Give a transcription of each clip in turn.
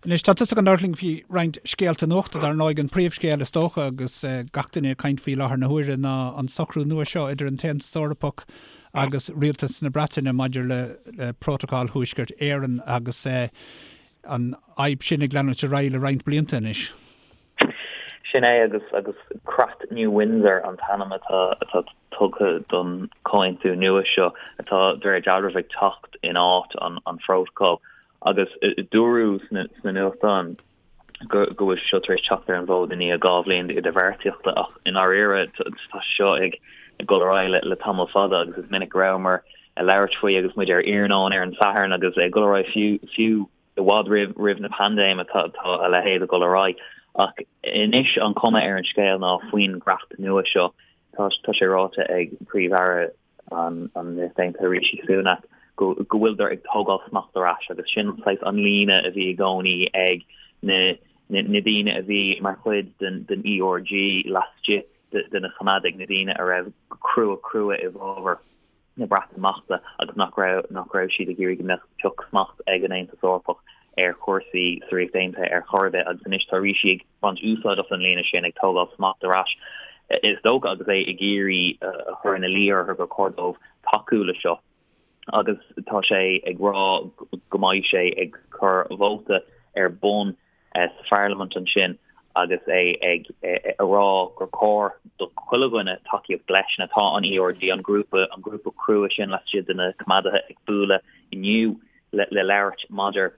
Anois, tá tusa chun labhairt linn faoi roinnt scéalta nuachta, dar ndóigh, an príomhscéal is dócha agus gach duine ag caint faoi láthair na huaire ná an socrú nua seo idir an tAontas Eorpach agus Rialtas na Breataine maidir le Prótacal Thuaisceart Éireann agus an fhadhb sin ag leanúint ar aghaidh le roinnt blianta anois. Sin é agus agus Creat New Windsor an t-ainm atá atá tugtha don chomhaontú nua seo atá de réir dealraimh ag teacht in áit an an phrótacail. Agus dúradh sna nuachtáin go bhfuil sé seo tar éis teacht ar an bhfód i ndiaidh 2 bhliain d'idirbheartaíochta ach i ndáiríre tá sé seo ag dul ar aghaidh le tamall fada agus is minic go rabhamar ag labhairt faoi agus muid ar iarnóin ar an Satharn agus ag dul ar aghaidh fiú fiú i bhfad roimh roimh na paindéime tá tá a leithéid ag dul ar aghaidh. Ach anois an chuma ar an scéal ná faoin gcreat nua seo tá tá sé ráite ag Príomh-Aire an Ríocht Aontaithe Rishi Sunak go bhfuileadar ag tógáil smacht ar ais agus sin saghas an líne a bhí i gcónaí ag na na daoine a bhí mar chuid den den ERG laistigh de na Coimeádaigh, na daoine a raibh crua crua i bhfabhar na Breatimeachta agus nach raibh nach raibh siad ag iarraidh go mbeadh pioc smacht ag an Aontas Eorpach ar chúrsaí sa Ríocht Aontaithe ar chor ar bith agus anois tá Rishi ag baint úsáid as an líne sin, ag tógáil smacht ar ais, is dócha, agus é ag iarraidh a chur ina luí orthu gur chóir dóibh tacú le seo. Agus tá sé ag rá go mbeidh sé ag cur vóta ar bun sa pharlaimint ansin agus é ag rá gur chóir do chuile dhuine tacaíocht leis. Now tá an ERG, an grúpa, an grúpa crua sin laistigh de na Coimeádaithe ag bualadh inniu le labhairt maidir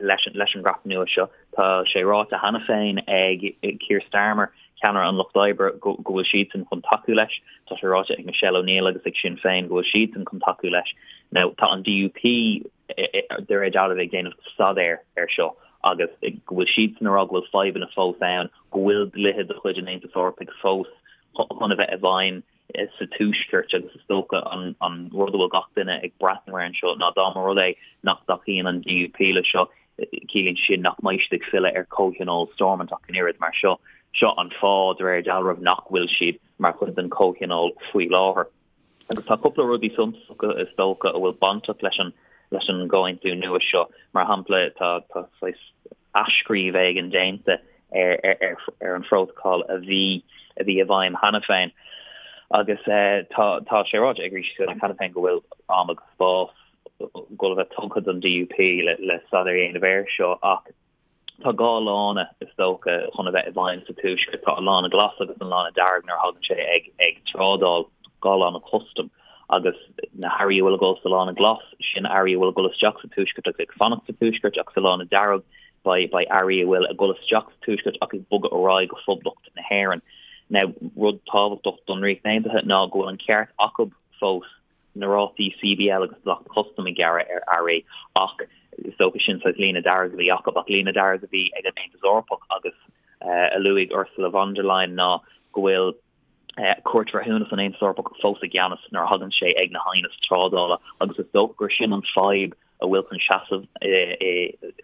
leis an gcreat nua seo. Tá sé ráite cheana féin ag Keir Starmer, ceannaire an Lucht Oibre, go bhfuil siadsan chun tacú leis. Tá sé ráite ag Michelle O'Neill agus ag Sinn Féin go bhfuil siadsan chun tacú leis. Now, tá an DUP de réir dealraimh ag déanamh staidéir ar seo agus go bhfuil siadsan ag rá go bhfuil fadhbanna fós ann, go bhfuil dlíthe de chuid an Aontais Eorpaigh fós chun a bheith i bhfeidhm sa Tuaisceart agus is dócha an rud a bhfuil gach duine ag breathnú air anseo ná dá mba rud é nach dtacaíonn an DUP le seo, ciallaíonn sé sin nach mbeidh siad ag filleadh ar Chomhthionól Stormont ach an oiread mar seo. Seo an fáth, de réir dealraimh, nach bhfuil siad mar chuid den Chomhthionól faoi láthair. Agus tá cúpla rudaí suntasacha is dócha a bhfuil bainteach leis an leis an gcomhaontú nua seo. Mar shampla, tá tá saghas athscríobh éigin déanta ar ar ar an phrótacal a bhí a bhí i bhfeidhm cheana féin. Agus tá tá sé ráite ag Rishi Sunak cheana féin go bhfuil am agus spás ag dul a bheith tugtha don DUP le le staidéar a dhéanamh air seo ach Tá 2 lána, is dócha, chun a bheith i bhfeidhm sa Tuaisceart. Tá an lána glas agus an lána dearg nuair a thagann sé ag ag trádáil, 2 lána custaim, agus na hearraí a bhfuil ag dul sa lána glas, sin earraí a bhfuil ag dul isteach sa Tuaisceart agus ag fanacht sa Tuaisceart, ach sa lána dearg beidh beidh earraí a bhfuil ag dul isteach sa Tuaisceart ach ag bogadh ar aghaidh go Phoblacht na hÉireann. Now, rud tábhachtach don Ríocht Aontaithe ná go bhfuil an ceart acu fós na rátaí CBL agus dleacht custaim a ghearradh ar earraí ach is dócha sin saghas líne dearg a bhí acu ach líne dearg a bhí ag an Aontas Eorpach agus a luaigh Ursula von der Leyen ná go bhfuil Cúirt Bhreithiúnas an Aontais Eorpach fós i gceannas nuair a thagann sé ag na haighnis trádála agus is dócha gur sin an fadhb a bhfuil chun seasamh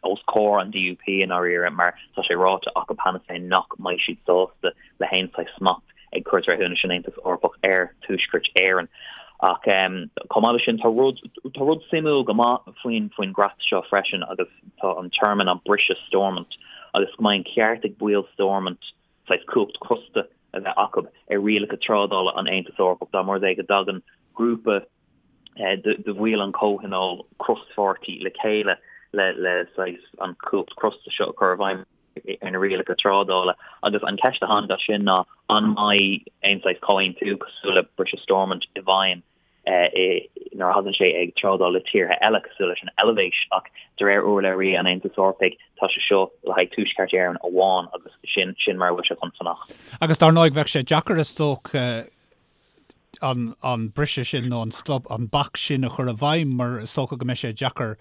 os comhair an DUP i ndáiríre mar tá sé ráite acu cheana féin nach mbeidh siad sásta le haon saghas smacht ag Cúirt Bhreithiúnais an Aontais Eorpach ar Tuaisceart Éireann. Ach chomh maith leis sin, tá rud tá rud suimiúil go maith faoin faoin gcreat seo freisin agus tá an téarma ná briseadh Stormont agus go mbeidh an ceart ag baill Stormont saghas cumhacht crosta a bheith acu ar rialacha trádála an Aontais Eorpach dá mba rud é go dtagann grúpa de bhaill an chomhthionóil crospháirtí le chéile le saghas an chumhacht crosta seo a chur i bhfeidhm ar na rialacha trádála. Agus an cheist a tháinig as sin ná an mbeidh aon saghas comhaontú cosúil le briseadh Stormont i bhfeidhm nuair a thagann sé ag trádáil le tíortha eile cosúil leis an Eilvéis ach de réir urlabhraí an Aontais Eorpaigh tá sé seo le haghaidh Tuaisceart Éireann amháin agus sin sin mar a bhfuil sé chun fanacht. Agus dar ndóigh bheadh sé deacair is dócha an an briseadh sin nó an stop, an bac sin a chur i bhfeidhm mar is dócha go mbeidh sé deacair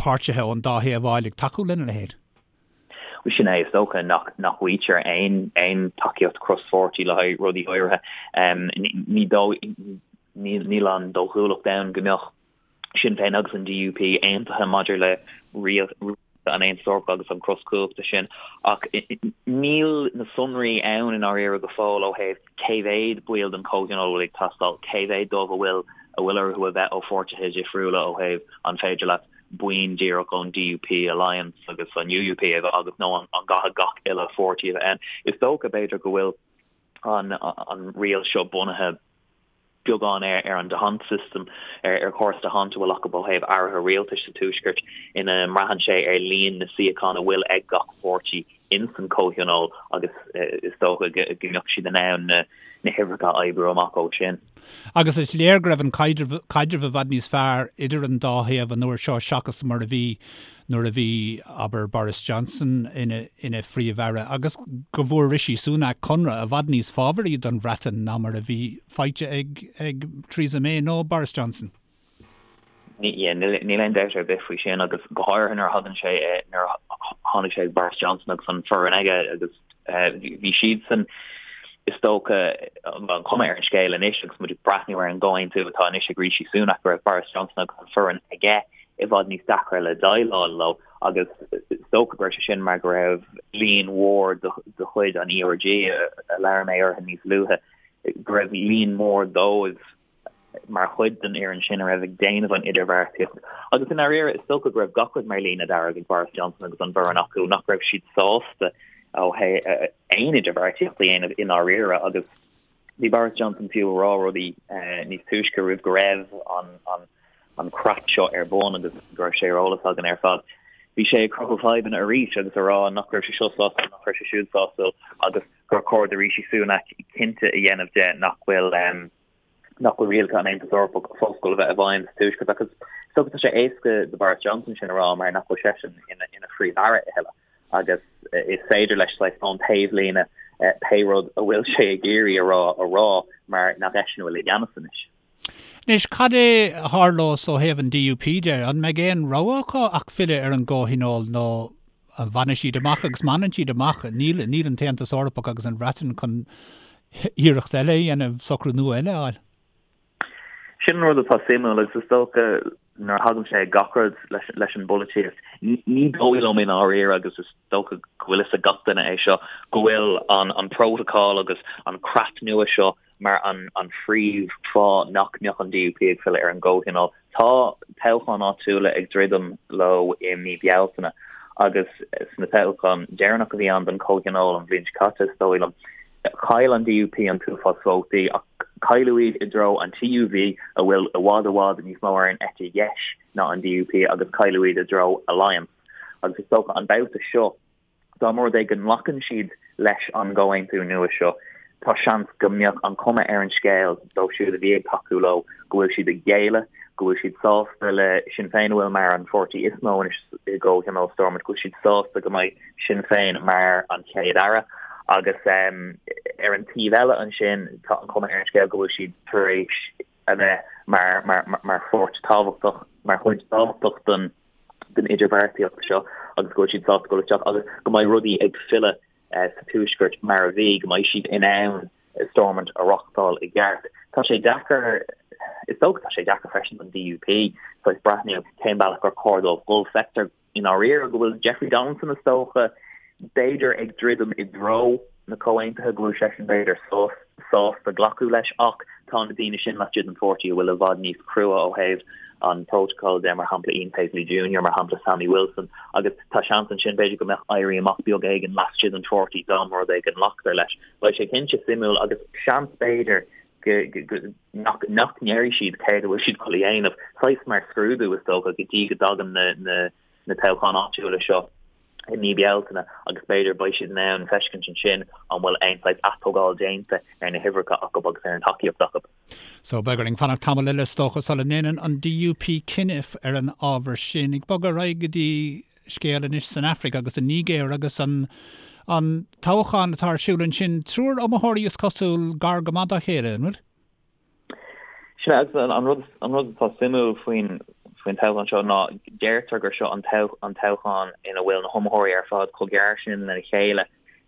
páirtithe ón dá thaobh a fháil ag tacú lena leithéid. Bhuel sin é, is dócha nach nach bhfaightear aon aon tacaíocht crospháirtí le haghaidh rudaí áirithe. Ní dóigh níl an dóchúlacht ann go mbeadh Sinn Féin agus an DUP aontaithe maidir le rialacha an Aontais Eorpaigh agus an cros cumhachta sin, ach níl na sonraí ann i ndáiríre go fóill ó thaobh cé mhéad baill den Chomhthionól a bhfuil ag teastáil, cé mhéad dóibh a bhfuil a bhfuil orthu a bheith ó pháirtithe difriúla ó thaobh an féidir leat. buíon díreach ón DUP, Alliance agus an UUP a bheith agat nó an gcaithfidh gach uile pháirtí a bheith ann. Is dócha, b'fhéidir, go bhfuil an riail seo bunaithe beagán ar an D'Hondt system, ar chóras D'Hondt a bhfuil acu ó thaobh airithe rialtais sa Tuaisceart, ina mbraitheann sé ar líon na suíochán a bhfuil ag gach páirtí ins an Chomhthionól agus is dócha go mbeadh siad in ann na huimhreacha a oibriú amach ó sin. Agus is léir go raibh an caidreamh i bhfad níos fearr idir an dá thaobh an uair seo seachas mar a bhí nuair a bhí, abair, Boris Johnson ina ina Phríomh-Aire agus go bhfuair Rishi Sunak conradh i bhfad níos fábharaí don Bhreatain ná mar a bhí faighte ag ag Theresa May nó Boris Johnson. Níl aon dabht ar bith faoi sin agus go háirithe nuair a thagann sé, nuair a tháinig sé ag Boris Johnson agus an foireann aige agus bhí siadsan, is dócha, an chuma ar an scéal anois agus muid ag breathnú ar an gcomhaontú atá anois ag Rishi Sunak go raibh Boris Johnson agus an foireann aige i bhfad níos deacra le déileáil leo agus is dócha go raibh sé sin mar go raibh líon mhór de chuid an ERG a labhair mé orthu níos luaithe, go raibh líon mór dóibh mar chuid den fhoireann sin a raibh ag déanamh an idirbheartaíocht. Agus i ndáiríre, is dócha go raibh gach rud mar líne dearg ag Boris Johnson agus an bhfoireann acu, nach raibh siad sásta ó thaobh aon idirbheartaíocht a dhéanamh i ndáiríre agus bhí Boris Johnson fiú ag rá rudaí níos túisce roimh go raibh an an creat seo ar bun agus go raibh sé ar eolas againn ar fad. Bhí sé ag cruthú fadhbanna arís agus ag rá nach raibh sé seo sásúil, nach raibh sé siúd sásúil agus gur chóir do Rishi Sunak cinnte a dhéanamh de nach bhfuil nach bhfuil rialacha an Aontais Eorpaigh fós ag dul a bheith i bhfeidhm sa Tuaisceart agus is dócha tá sé éasca do Boris Johnson sin a rá mar nach bhfuil seisean ina ina phríomh-aire a thuilleadh agus is féidir leis saghas ón taobhlíne pé rud a bhfuil sé ag iarraidh a rá a rá mar nach eisean a bhfuil i gceannas anois. Anois, cad é a tharlós ó thaobh an DUP de? An mbeidh aon rogha acu ach filleadh ar an gComhthionól nó an bhfanfaidh siad amach? Agus má fhanann siad amach, níl, níl an tAontas Eorpach agus an Bhreatain chun iarracht eile a dhéanamh, socrú nua eile a fháil. Sin an rud atá suimiúil agus is dócha nuair a thagann sé ag gach rud leis, leis an bpolaitíocht, ní dóigh liom i ndáiríre agus is dócha go bhfuil fhios ag gach duine é seo, go bhfuil an, an prótacal agus an creat nua seo mar an phríomh-fháth nach mbeadh an DUP ag filleadh ar an gComhthionól. Tá toghcháin áitiúla ag druidim leo i mí Bealtaine agus sna toghcháin deireanach a bhí ann don Chomhthionól an bhliain seo caite, is dóigh liom, chaill an DUP an t-uafás vótaí ach cailleadh iad i dtreo an TUV a bhfuil i bhfad i bhfad níos mó ar an eite dheis ná an DUP agus cailleadh iad i dtreo Alliance agus is dócha an babhta seo Dá mba rud é go nglacann siad leis an gcomhaontú nua seo, tá seans go mbeadh an chuma ar an scéal dóibh siúd a bhí ag tacú leo go bhfuil siad ag géilleadh, go bhfuil siad sásta le Sinn Féin a bhfuil mar an pháirtí is mó anois i gComhthionól Stormont, go bhfuil siad sásta go mbeidh Sinn Féin mar an Chéad Aire. Agus ar an taobh eile ansin, tá an chuma ar an scéal go bhfuil siad tar éis a bheith mar mar pháirt tábhachtach, mar chuid tábhachtach den den idirbheartaíocht seo agus go bhfuil siad sásta dul isteach agus go mbeidh rudaí ag filleadh sa Tuaisceart mar a bhí, go mbeidh siad in ann Stormont a reáchtáil i gceart. Tá sé deacair, is dócha tá sé deacair freisin don DUP saghas breathnú cén bealach gur chóir dóibh dul. Feictear i ndáiríre go bhfuil Jeffrey Donaldson is dócha, b'fhéidir ag druidim i dtreo na comhaontaithe, go bhfuil seisean b'fhéidir sásta glacadh leis ach tá na daoine sin laistigh den pháirtí a bhfuil i bhfad níos crua ó thaobh an prótacal de, mar shampla Ian Paisley Junior, mar shampla Sammy Wilson, agus tá seans ansin b'fhéidir go mbeadh éirí amach beag éigin laistigh den pháirtí dá mba rud é go nglactar leis. Beidh sé cinnte suimiúil agus seans b'fhéidir nach nach ndéarfaidh siad céard a bhfuil siad chun a dhéanamh, saghas mar scrúdú is dócha go dtí go dtagann na na na toghcháin áitiúla seo i mí Bealtaine agus b'fhéidir beidh siad in ann feiscint ansin an bhfuil aon saghas atógáil déanta ar na huimhreacha acu agus ar an tacaíocht acu. So beidh orainn fanacht tamall eile is dócha sula ndéanann an DUP cinneadh ar an ábhar sin. Ag bogadh ar aghaidh go dtí scéal anois san Afraic agus an Nigéir agus an an toghchán atá ar siúl ansin. Triúr iomaitheoirí is cosúil gar go maith dá chéile, an bhfuil? Sin é, agus an rud an rud atá suimiúil faoin faoin toghchán seo ná deirtear gur seo an an toghchán ina bhfuil na hiomaitheoirí ar fad chomh gearr sin lena chéile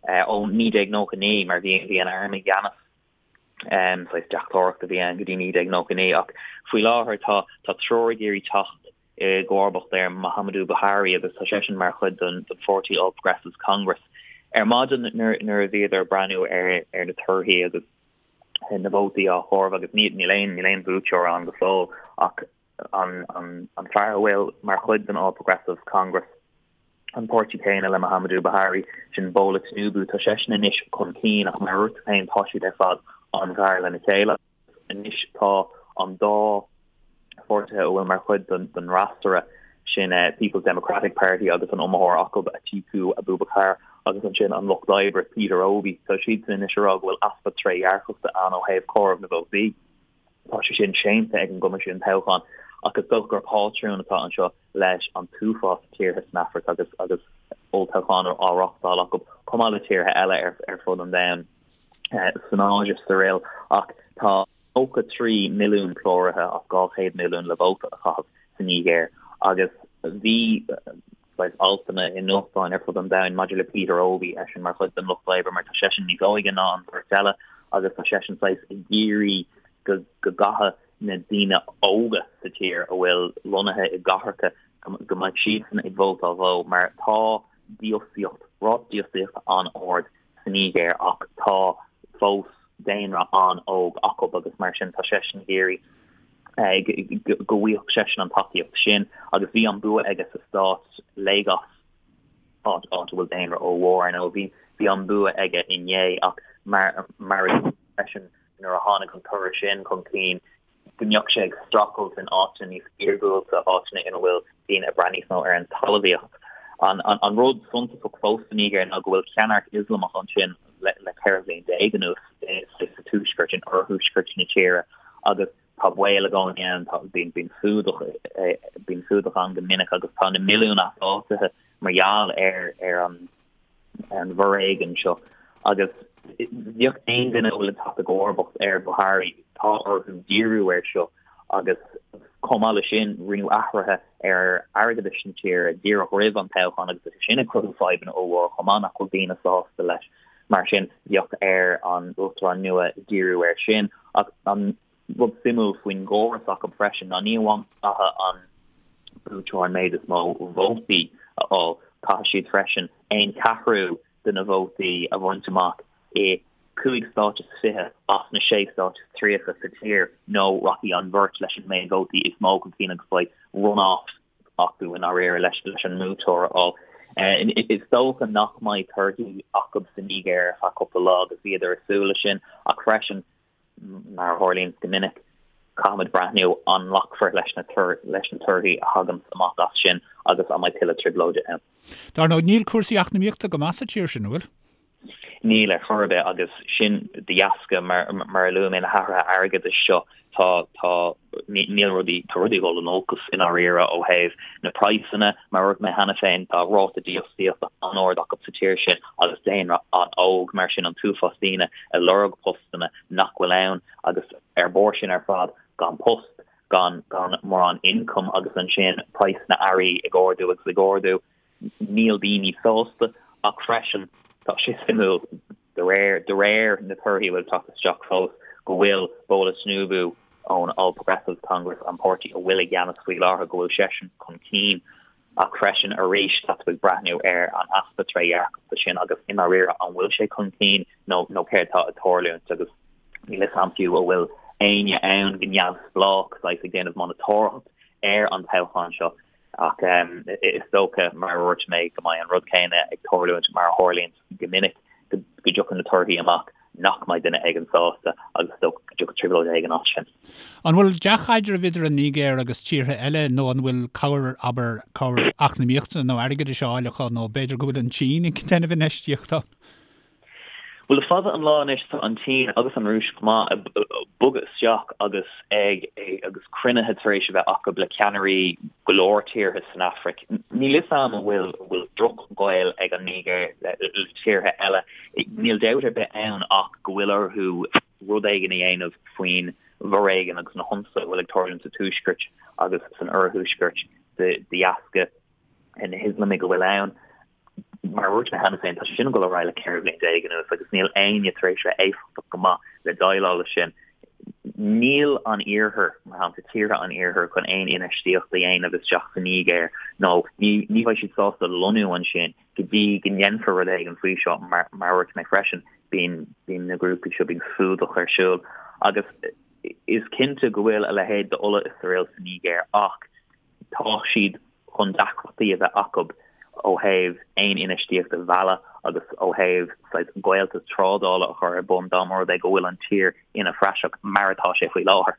ó 1999 mar bhí bhí an arm i gceannas saghas deachtóireacht a bhí ann go dtí 1999 ach faoi láthair tá tá triúr ag iarraidh teacht i gcomharbacht ar Muhammadu Buhari agus tá seisean mar chuid den pháirtí All Progressives Congress. Ar maidin nuair a bhíodar ag breathnú ar ar na torthaí agus na vótaí á chomhaireamh agus níl aon níl aon bhuaiteoir ann go fóill ach. An an fear a bhfuil mar chuid den All Progressives Congress, an páirtí céanna le Muhammadu Buhari, sin Bola Tinubu, tá seisean anois chun cinn ach mar a dúirt tú féin tá siad ar fad an-ghar lena chéile. Anois tá an dá pháirtithe a bhfuil mar chuid den fhreasúra, sin People's Democratic Party agus an iomaitheoir acu, Atiku Abubakar, agus ansin an Lucht Oibre, Peter Obi, tá siadsan anois ag rá go bhfuil easpa trédhearcachta ann ó thaobh comhaireamh na vótaí. Tá sé sin séanta ag an gCoimisiún Toghcháin ach is dócha gur pátrún atá anseo leis an t-uafás tíortha san Afraic agus agus olltoghcháin á reáchtáil acu, chomh maith le tíortha eile ar fud an domhain, san Áise is araile. Ach tá 93 milliún cláraithe as 200 milliún le vóta a chaitheamh sa Nigéir agus bhí saghas altanna i nuachtáin ar fud an domhain maidir le Peter Obi, eisean mar chuid den Lucht Oibre mar tá seisean níos óige ná an bheirt eile agus tá seisean saghas ag iarraidh go go gcaithfidh na daoine óga sa tír a bhfuil lonnaithe i gcathracha go mbeidh siadsan ag vótáil dhó mar tá dífhostaíocht, ráta dífhostaíochta an-ard sa Nigéir ach tá fós daonra an-óg acu agus mar sin tá seisean ag iarraidh go bhfaigheadh seisean an tacaíocht sin agus bhí an bua aige sa stát Lagos, áit a bhfuil daonra ollmhór ar ndóigh. Bhí an bua aige inné ach mar mar a dúirt freisin nuair a tháinig an toradh sin chun cinn go mbeadh sé ag streachailt in áiteanna níos iargúlta, áiteanna ina bhfuil daoine ag brath níos mó ar an talmhaíocht. An rud suntasach fós sa Nigéir ná go bhfuil ceannairc Ioslamach ansin le 14 bhliain anuas sa tuaisceart, in oirthuaisceart na tíre agus tá baol i gcónaí ann, bíonn fuadach, bíonn fuadach ann go minic agus tá na milliúin easáitithe mar gheall ar ar an ar an bhforéigean seo agus bheadh aon duine a bhfuil ag teacht i gcomharbacht ar Buhari, tá orthu díriú air seo agus chomh maith leis sin rinneadh athruithe ar airgeadas na tíre díreach roimh an toghchán agus tá sé sin ag cruthú fadhbanna ollmhóra chomh maith nach bhfuil daoine sásta leis. Mar sin bheadh ar an uachtarán nua díriú air sin ach an rud suimiúil faoin gcóras acu freisin ná ní amháin caithfidh an buaiteoir an méid is mó vótaí a fháil, caithfidh siad freisin aon cheathrú de na vótaí a bhaint amach i 5 stát is 20 as na 6 stát is 30 sa tír nó rachaidh an bheirt leis an méid vótaí is mó chun cinn agus beidh run-off acu i ndáiríre leis an mbuaiteoir a fháil. Is dócha nach mbeidh torthaí acu sa Nigéir ar feadh cúpla lá agus bhíodar ag súil leis sin ach freisin Mar a tharlaíonn go minic, caithfimid breathnú an nglacfar leis na leis na torthaí a thaganns amach as sin agus an mbeidh tuilleadh trioblóide ann. Dar ndóigh, níl cúrsaí eacnamaíochta go maith sa tír sin, an bhfuil? Níl ar chor ar bith agus sin de dheasca, mar mar a luaigh mé, na hathruithe airgeadais seo. Tá, tá, níl rudaí, tá rudaí ag dul in olcas i ndáiríre ó thaobh na praghsanna. Mar a dúirt mé cheana féin, tá ráta dífhostaíochta an-ard acu sa tír sin agus daonra an-óg, mar sin an t-uafás daoine ag lorg postanna nach bhfuil ann agus ar bharr sin ar fad gan post, gan, gan mórán ioncaim agus ansin praghas na n-earraí ag ardú agus ag ardú. Níl daoine sásta ach freisin tá sé suimiúil, de réir de réir na torthaí a bhfuil ag teacht isteach fós, go bhfuil Bola Tinubu ón All Progressives Congress, an páirtí a bhfuil i gceannas faoi láthair, go bhfuil seisean chun cinn. Ach freisin arís tá tú ag breathnú ar an easpa trédhearcachta sin agus i ndáiríre an bhfuil sé chun cinn nó nó céard atá ag tarlúint agus níl a fhios agam fiú an bhfuil éinne ann go neamhspleách saghas ag déanamh monatóireacht ar an toghchán seo. Ach is dócha, mar a dúirt mé, go mbeidh an rud céanna ag tarlúint mar a tharlaíonn go minic, go dtiocfaidh na torthaí amach nach mbeidh duine éigin sásta agus is dócha go dtiocfaidh trioblóid éigin as sin. An bhfuil dea-chaidreamh idir an Nigéir agus tíortha eile nó an bhfuil cabhair, abair, cabhair eacnamaíochta nó airgeadais á fháil acu nó b'fhéidir go bhfuil an tSín ag déanamh infheistíocht ann? Bhuel, le fada an lá anois tá an tSín agus an Rúis chomh maith ag bogadh isteach agus ag agus cruinnithe tar éis a bheith acu le ceannairí go leor tíortha san Afraic. Níl fhios a'm an bhfuil an bhfuil drochghaol ag an Nigéir le tíortha eile. Níl dabht ar bith ann ach go bhfuil orthu rud éigin a dhéanamh faoin bhforéigean agus na hionsaithe a bhfuil ag tarlúint sa tuaisceart agus san oirthuaisceart de dheasca na hIoslamaigh a bhfuil ann. Mar a dúirt mé cheana féin, tá sé sin ag dul ar aghaidh le 14 bhliain anuas agus níl éinne tar éis bheith éifeachtach go maith le déileáil leis sin. Níl an Iarthar, mar shampla tíortha an Iarthair, chun aon infheistíocht a dhéanamh isteach sa Nigéir nó ní ní bheidh siad sásta lonnú ansin go dtí go ndéanfar rud éigin faoi seo. Mar a dúirt mé freisin, bíonn bíonn na grúpaí seo, bíonn fuadach ar siúl agus. Is cinnte go bhfuil a leithéid d'ola is aril sa Nigéir ach tá siad chun deacrachtaí a bheith acu ó thaobh aon infheistíocht a mhealladh agus ó thaobh saghas gaolta trádála a chur ar bun dá mba rud é go bhfuil an tír ina phraiseach mar atá sé faoi láthair.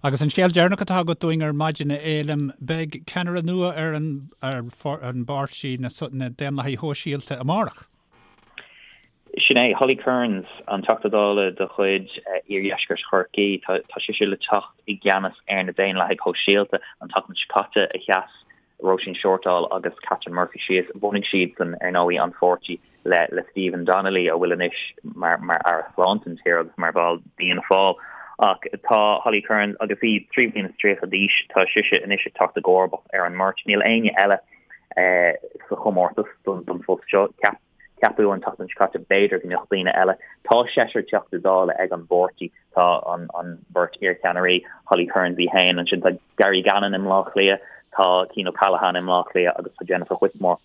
Agus an scéal deireanach atá agat dúinn ar maidin, a Fhéilim, beidh ceannaire nua ar an ar an bpáirtí, na Daonlathaigh Shóisialta, amárach. Sin é, Holly Cairns, an Teachta Dála de chuid Iardheisceart Chorcaí. Tá sise le teacht i gceannas ar na Daonlathaigh Shóisialta an tseachtain seo caite a sheas Róisín Shortall agus Catherine Murphy síos. Bhunaigh siadsan, ar ndóigh, an pháirtí le le Stephen Donnelly, a bhfuil anois mar mar Aire Sláinte an tír agus mar bhall d'Fhianna Fáil. Ach tá Holly Cairns, agus í 33 bliana d'aois, tá sise anois ag teacht i gcomharbacht ar an mbeirt. Níl éinne eile sa chomórtas don phost seo. Ceapadh an tseachtain seo caite b'fhéidir go mbeadh daoine eile. Tá seisear Teachta Dála ag an bpáirtí. Tá an bheirt iarcheannairí, Holly Cairns í féin, ansin tá Gary Gannon i mBleá Cliath, tá Cian O'Callaghan i mBleá Cliath agus tá Jennifer Whitmore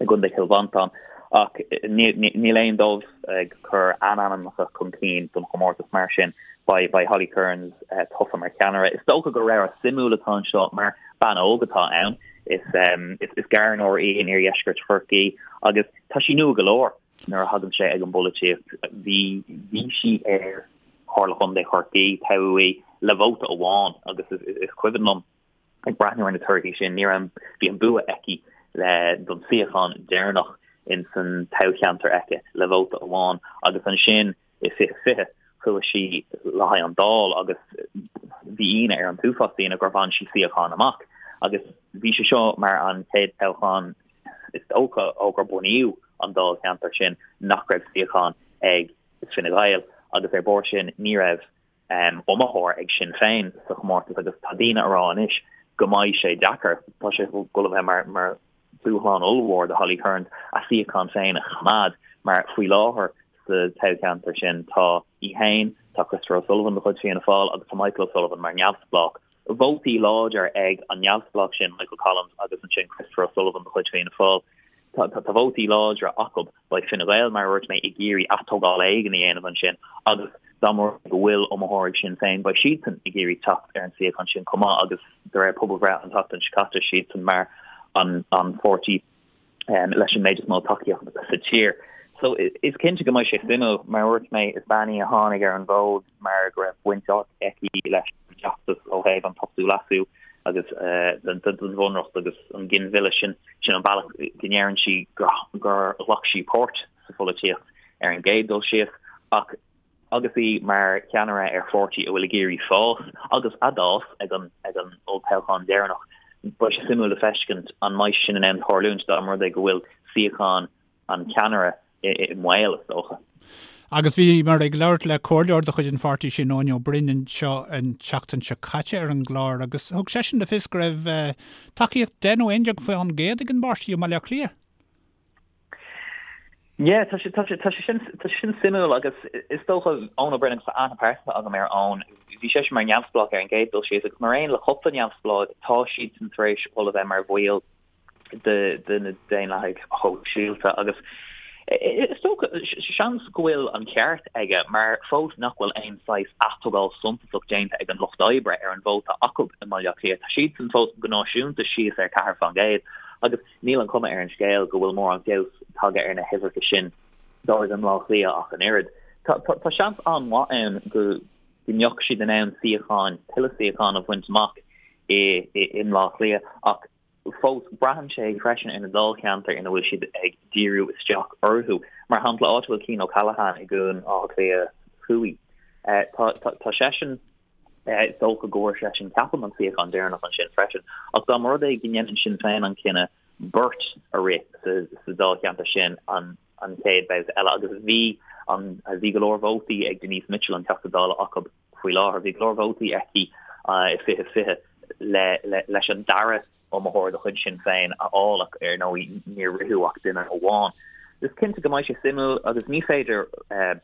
i gContae Chill Mhantáin. Ach níl aon dóibh ag cur a n-ainmneacha chun cinn don chomórtas mar sin beidh Holly Cairns tofa mar cheannaire. Is dócha gur rogha suimiúil atá anseo mar bean óg atá ann. Is gairneoir í in iardheisceart Chorcaí agus tá sí nua go leor nuair a thagann sé ag an bpolaitíocht. Bhí bhí sí ar Chomhairle Chontae Chorcaí, toghadh í le vóta amháin agus is cuimhin liom ag breathnú ar na torthaí sin, ní raibh bhí an bua aici le don suíochán deireanach in san toghcheantar aici le vóta amháin agus ansin I 2020, chuaigh sí le haghaidh an Dáil agus bhí ionadh ar an t-uafás daoine gur bhain sí suíochán amach. Agus bhí sé seo mar an chéad toghchán is dócha ó gur bunaíodh an dáilcheantar sin nach raibh suíochán ag Fine Gael agus ar bharr sin ní raibh iomaitheoir ag Sinn Féin sa chomórtas agus tá daoine a rá anois go mbeidh sé deacair, tá sé ag dul a bheith mar mar dúshlán ollmhór do Holly Cairns a suíochán féin a choimeád mar faoi láthair sa toghcheantar sin tá í féin, tá Christopher O'Sullivan de chuid Fianna Fáil agus tá Michael O'Sullivan mar neamhspleách. Vótaí láidir ag an neamhspleách sin, Michael Collins, agus ansin Christopher O'Sullivan de chuid Fianna Fáil. Tá vótaí láidre acu. Beidh Fine Gael, mar a dúirt mé, ag iarraidh atógáil éigin a dhéanamh ansin agus dá mba rud go bhfuil iomaitheoir ag Sinn Féin, beidh siadsan ag iarraidh teacht ar an suíochán sin chomh maith agus de réir pobalbhreith an tseachtain seo caite, siadsan mar an pháirtí leis an méid is mó tacaíocht sa tír. So is cinnte go mbeidh sé suimiúil. Mar a dúirt mé, is bean í a tháinig ar an bhfód mar go raibh baint aici leis an bhfeachtas ó thaobh an t-ochtú leasú agus den bhunreacht agus an ginmhilleadh sin. Sin an bealach go ndeireann sí gur ghlac sí páirt sa pholaitíocht ar an gcéad dul síos ach agus í mar cheannaire ar pháirtí a bhfuil ag iarraidh fás agus a d'fhás ag an ag an olltoghchán deireanach, beidh sé suimiúil le feiscint an mbeidh sin in ann tarlúint dá mba rud é go bhfuil suíochán an cheannaire i mbaol, is dócha. Agus bhíomar ag labhairt le comhairleoir de chuid an pháirtí sin, Eoin Ó Broin, anseo an tseachtain seo caite ar an gclár agus thug seisean le fios go raibh tacaíocht 10 nó 11% ag an bpáirtí i mBaile Átha Cliath. Yeah, tá sé, tá sé, tá sé sin, tá sé sin suimiúil agus is dócha Eoin Ó Broin agus tá aithne pearsanta agam ar Eoin, bhí seisean mar neamhspleách ar an gcéad dul síos agus mar aon le cúpla neamhspleách tá siadsan tar éis dul a bheith mar bhaill de na Daonlathaigh Shóisialta agus is dócha, seans go bhfuil an ceart aige mar fós nach bhfuil aon saghas atógáil suntasach déanta ag an Lucht Oibre ar an vóta acu i mBaile Átha Cliath. Tá siadsan fós go náisiúnta síos ar 4% agus níl an chuma ar an scéal go bhfuil mórán feabhas tagtha ar na huimhreacha sin dóibh i mBleá Cliath ach an oiread. Tá seans an-mhaith ann go mbeadh siad in ann suíocháin, tuilleadh suíochán a bhaint amach i mBleá Cliath ach Fós, braitheann sé freisin ar na dáilcheantair ina bhfuil siad ag díriú isteach orthu. Mar shampla, áit a bhfuil Cian O'Callaghan i gCuan Átha Cliath Thuaidh, tá seisean, is dócha go bhfuair seisean, ceapaim, an suíochán deireanach ansin freisin. Ach dá mba rud é go ndéanann Sinn Féin an cinneadh beirt a rith sa dáilcheantar sin an chéad bhabhta eile, agus bhí an, bhí go leor vótaí ag Denise Mitchell, an Teachta Dála acu, faoi láthair. Bhí go leor vótaí aici i 2020 leis an dara iomaitheoir de chuid Sinn Féin a fháil ach ar ndóigh níor ritheadh ach duine amháin. Is cinnte go mbeidh sé suimiúil agus ní féidir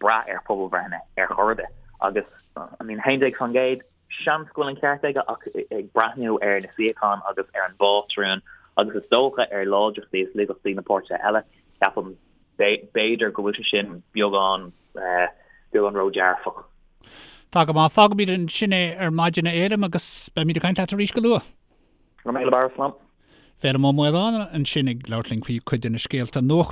brath ar phobalbhreitheanna ar chor ar bith agus I mean 11% seans go bhfuil an ceart aige ach ag breathnú ar na suíocháin agus ar an bpátrún agus is dócha ar láidreachtaí is laigeachtaí na páirtithe eile ceapaim b'fhéidir go bhfuil sé sin beagán beagán ródhearfach. Tá go maith. Fágfaimid ansin é ar maidin a Fhéilim agus beimid ag caint leat arís go luath. Go raibh míle maith, slán. Féilim Ó Maoláin ansin ag labhairt linn faoi chuid de na scéalta nuachta.